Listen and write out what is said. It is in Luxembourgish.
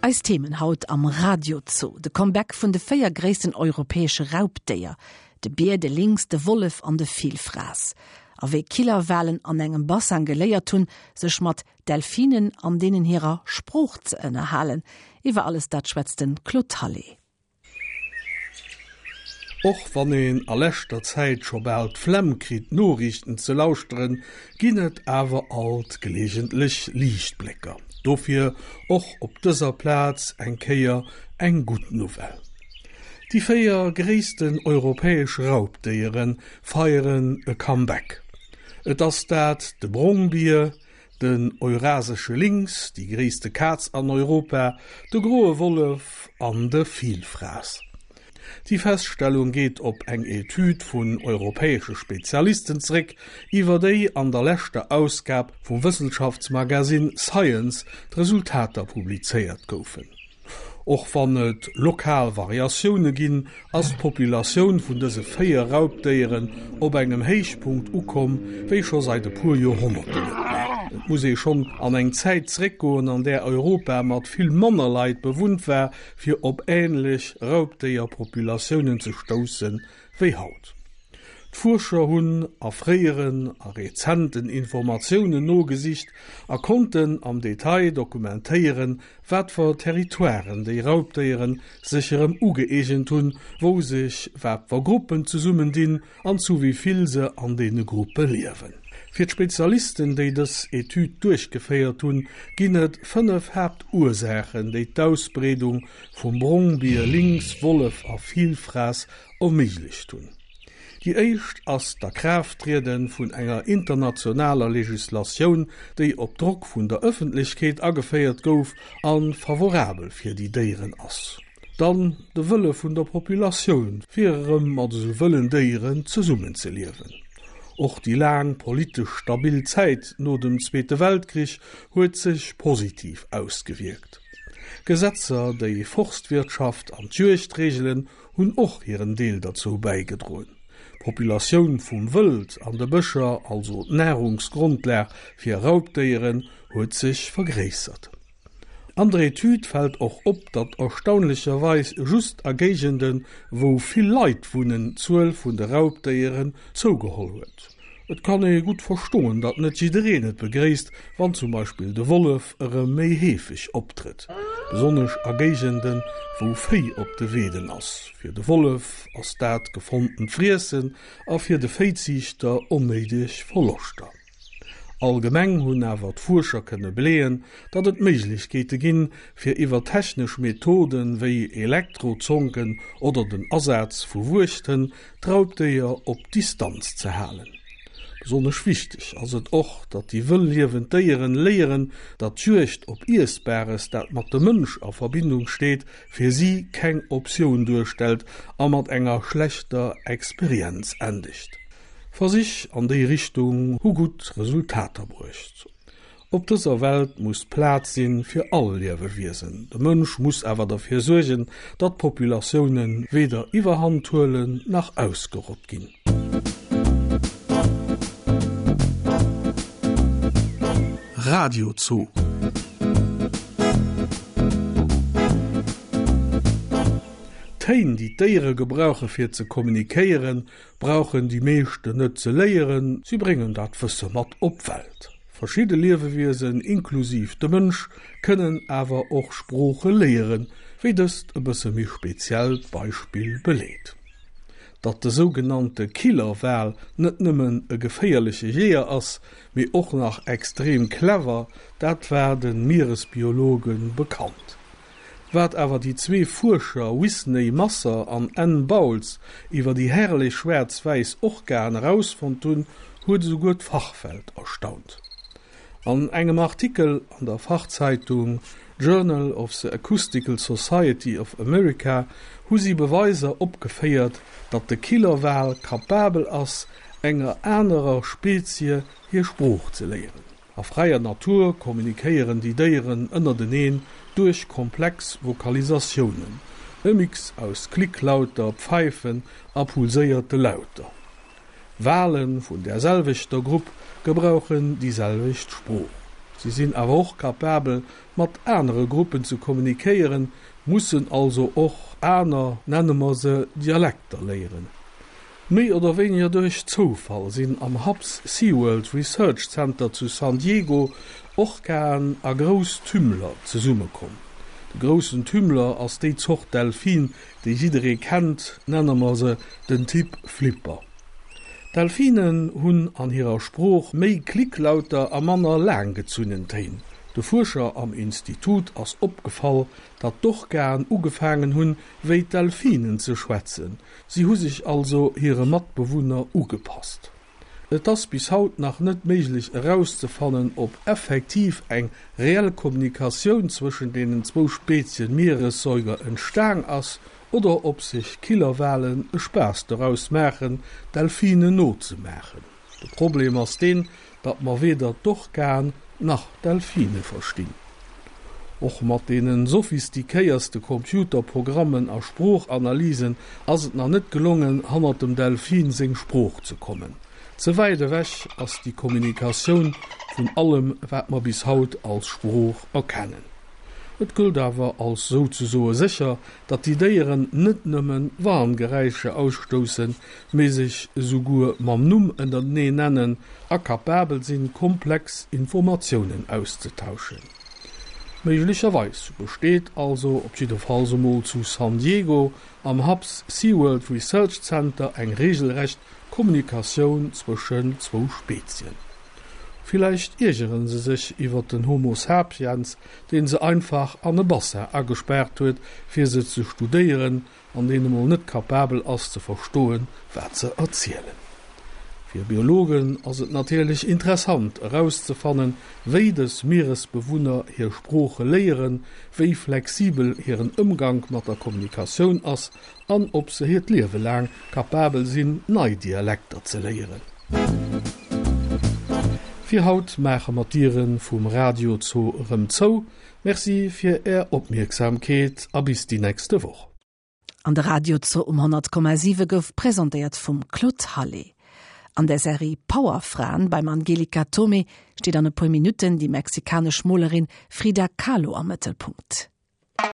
Eis Themen haut am Radiozoo, de Comeback vun de 4 gréissten europäesche Raubdéier, de Bier, de Lynx, de Wollef an de Villfraass. A wéi Killerwalen an engem Basseng geléiert hunn, sech mat Delfinen an deenen hirer Sprooch ze ënnerhalen. Iwwer alles dat schwätzt de Claude Hallé. Och wann een a leschter Zäit scho bal d'Flemm kritt d'Noriichten ze lauschteren, ginn et awer alt geleegentlech Liichtblécker. Dofir och op dëser Plaz eng Kéier eng gutt Nouvelle. Déi 4 gréissten europäesch Raubdéiere feieren e Comeback. Et ass dat de Brongbier, den eurasesche Lynx, déi gréisste Kaz an Europa, de groe Wollef an de Vilfraass. Déi Feststellung geet op eng Etüd vun europäesche Spezialisten zeréck, iwwer déi an der leschter Ausgab vum Wëssenschaftsmagasinn Science d'Resultater publizéiert goufen. Och wann et lokal Variatioune ginn, ass d'Populatioun vun dëse 4 Raubdéieren op engem Héichpunkt ukomm, wéi scho seit e puer Joerhonnerten net méi. Et muss ee schonn an eng Zäit zeréckgoen, an där Europa mat vill manner Leit bewunnt war, fir op änlech Raubdéierpopulatiounen ze stousse wéi haut. D'Fuerscher hunn a fréieren a rezenten Informatiounen nogesicht a konnten am Detail dokumentéieren, wat fer Territoiren déi Raubdéieren sech erëm ugëeegent hunn, wou sech wat fer Gruppen zesummendinn an zu wéi vill se an deene Gruppe liewen. Fir d'Spezialisten, déi dës Etüd duerchgeféiert hunn, ginn et 5 Haaptursaachen, déi d'Ausbreedung vum Brongbier, Lynx, Wollef a Vilfrass erméiglecht hunn. Déi éischt ass d'Akraafttriede vun enger internationaler Legislatioun, déi op Drock vun der Ëffentlechkeet ageféiert gouf a favorabel fir déi Déieren ass. Dann de Wëlle vun der Populatioun, fir erëm mat esou wëllen Déieren zesummenzeliewen. Och déi laang politesch stabil Zäit no dem Zweete Weltkrich huet sech positiv ausgewierkt. Gesetzer, déi Forstwirtschaft an d'Juegd reegelen, hunn och hiren Deel derzou bäigedroen. D'Populatioun vum Wëld an de Bëscher, also d'Nahrungsgrondlag fir Raubdéieren, huet sech vergréissert. An der Etüd fält och op, datt erstaunlecherweis just a Géigenden, wou vill Leit wunnen, d'Zuel vun de Raubdéieren zougeholl huet. Et kann ee gutt verstoen, datt net jiddereen et begréisst, wann zum Beispill de Wollef erëm méi heefeg optrëtt, besonnesch a Géigenden, wou Véi op de Weeden ass. Fir de Wollef ass dat gefonntent Friessen a fir de Véiziichter onnéideg Verloschter. Allgemeng hunn awer d'Fuerscher kënne beleeën, datt et Méiglechkeete ginn, fir iwwer technesch Methoden, wéi Elektrozonken oder den Asaz vu Wuechthënn, d'Raubdéier op Distanz ze halen. Besonnesch wichteg ass et och, datt déi wëll liewend Déieren léieren, datt d'Juegd op Iessbares, dat mat dem Mënsch a Verbindung steet, fir si keng Optioun duerstellt a mat enger schlechter Experienz endegt. Versich an déi Richtung hu gutt Resultater bruecht. Op dëser Welt muss Plaz sinn fir all Liewewiesen. De Mënsch muss awer derfir suergen, datt d'Populatioune weder Iwwerhand huelen nach ausgerott ginn. Radio Zoo. D'Téin, déi d'Déiere gebrauche fir ze kommunikéieren, brauchen déi meeschten net ze léieren, si bréngen dat Wësse mat op d'Welt. Verschidde Liewewiesen, inklusiv de Mënsch, kënnen awer och Sprooche léieren, wéi dëst e bësse méi speziellt Beispill beleet. Datt de sougenannte Killerwal net nëmmen e geféierleche Jeeër ass, mee och nach extrem clever, dat war de Mieresbiologe bekannt. Wat awer déi zwee Fuerscher Wisney Masser an Anne Bowles iwwer déi herrlech schwaarz-wäiss Orcaen erausfonnt hunn, huet esouguer d'Fachwelt erstaunt. An engem Artikel an der Fachzeitung Journal of the Acoustical Society of America hu si Beweiser opgeféiert, datt de Killerwal kapabel ass, enger anerer Spezie hir Sprooch ze léieren. A fräier Natur kommunikéieren déi Déieren ënnerteneen duerch komplex Vokalisatiounen, e Mix aus Klicklauter, Pfeifen a pulséierte Lauter. Wale vun där selwechter Grupp gebrauchen déi selwecht Sprooch. Si sinn awer och capabel, mat anere Gruppen ze kommunikéieren, mussen also och aner, nenne mer se Dialekter léieren. Méi oder wéiniger duerch Zoufall sinn am Hubbs SeaWorld Research Center zu San Diego Orcaen a grouss Tümmler zesummekomm. De groussen Tümmler ass déi Zort Delfin, déi jidderee kennt, nenne mer se den Typ Flipper. D'Delfinen hunn an hirer Sprooch méi Klicklauter a manner laanggezunnen Téin. De Fuerscher am Institut ass opgefall, datt d'Orcaen ugefaangen hunn, wéi d'Delfinen ze schwätzen. Si hu sech also hire Matbewunner ugepasst. Et ass bis haut nach net méiglech erauszefannen, ob effektiv eng reell Kommunikatioun zwëschen deenen zwou Spezien Mieressäuger entstaang ass oder ob sech Killerwalen e Spaass doraus maachen, Delfinen nozemaachen. De Problem ass deen, datt mer weder d'Orcaen nach d'Delfine verstinn. Och mat deene sophistiquéierste Computerprogrammen a Sproochanalysen ass et nach net gelongen, hannert dem Delfin seng Sprooch ze kommen. Ze wäit ewech ass déi Kommunikatioun vun allem, wat mer bis haut als Sprooch erkennen. Et gëllt awer als souzesoe sécher, datt déi Déieren net nëmme Warngeräischer ausstoussen, mee sech esouguer mam Numm ënnertenee nennen a kapabel sinn, komplex Informatiounen auszetauschen. Méiglecherweis besteet also, op jiddefalls emol zu San Diego am Hubbs SeaWorld Research Center, eng reegelrecht Kommunikatioun zwëschen zwou Spezien. Villäicht iergeren se sech iwwer den Homo sapiens, deen se einfach an e Bassin agespaart huet fir se ze studéieren an deen emol net kapabel ass ze verstoen wat se erzielen. Fir Biologen ass et natierlech interessant erauszefannen wéi dës Mieresbewunner hir Sprooche léieren, wéi flexibel hiren Ëmgank mat der Kommunikatioun ass an ob se hiert Liewe laang kapabel sinn, nei Dialekter ze léieren. Fir haut maache mer d'Diere vum Radio Zoo erëm zou. Merci fir Är Opmierksamkeet a bis déi nächste Woch. An de Radio Zoo um 100,7 gouf presentéiert vum Claude Hallé. An der Serie Powerfraen beim Angelika Thomé steet an e puer Minutten déi mexikanesch Molerin Frida Kahlo am Mëttelpunkt.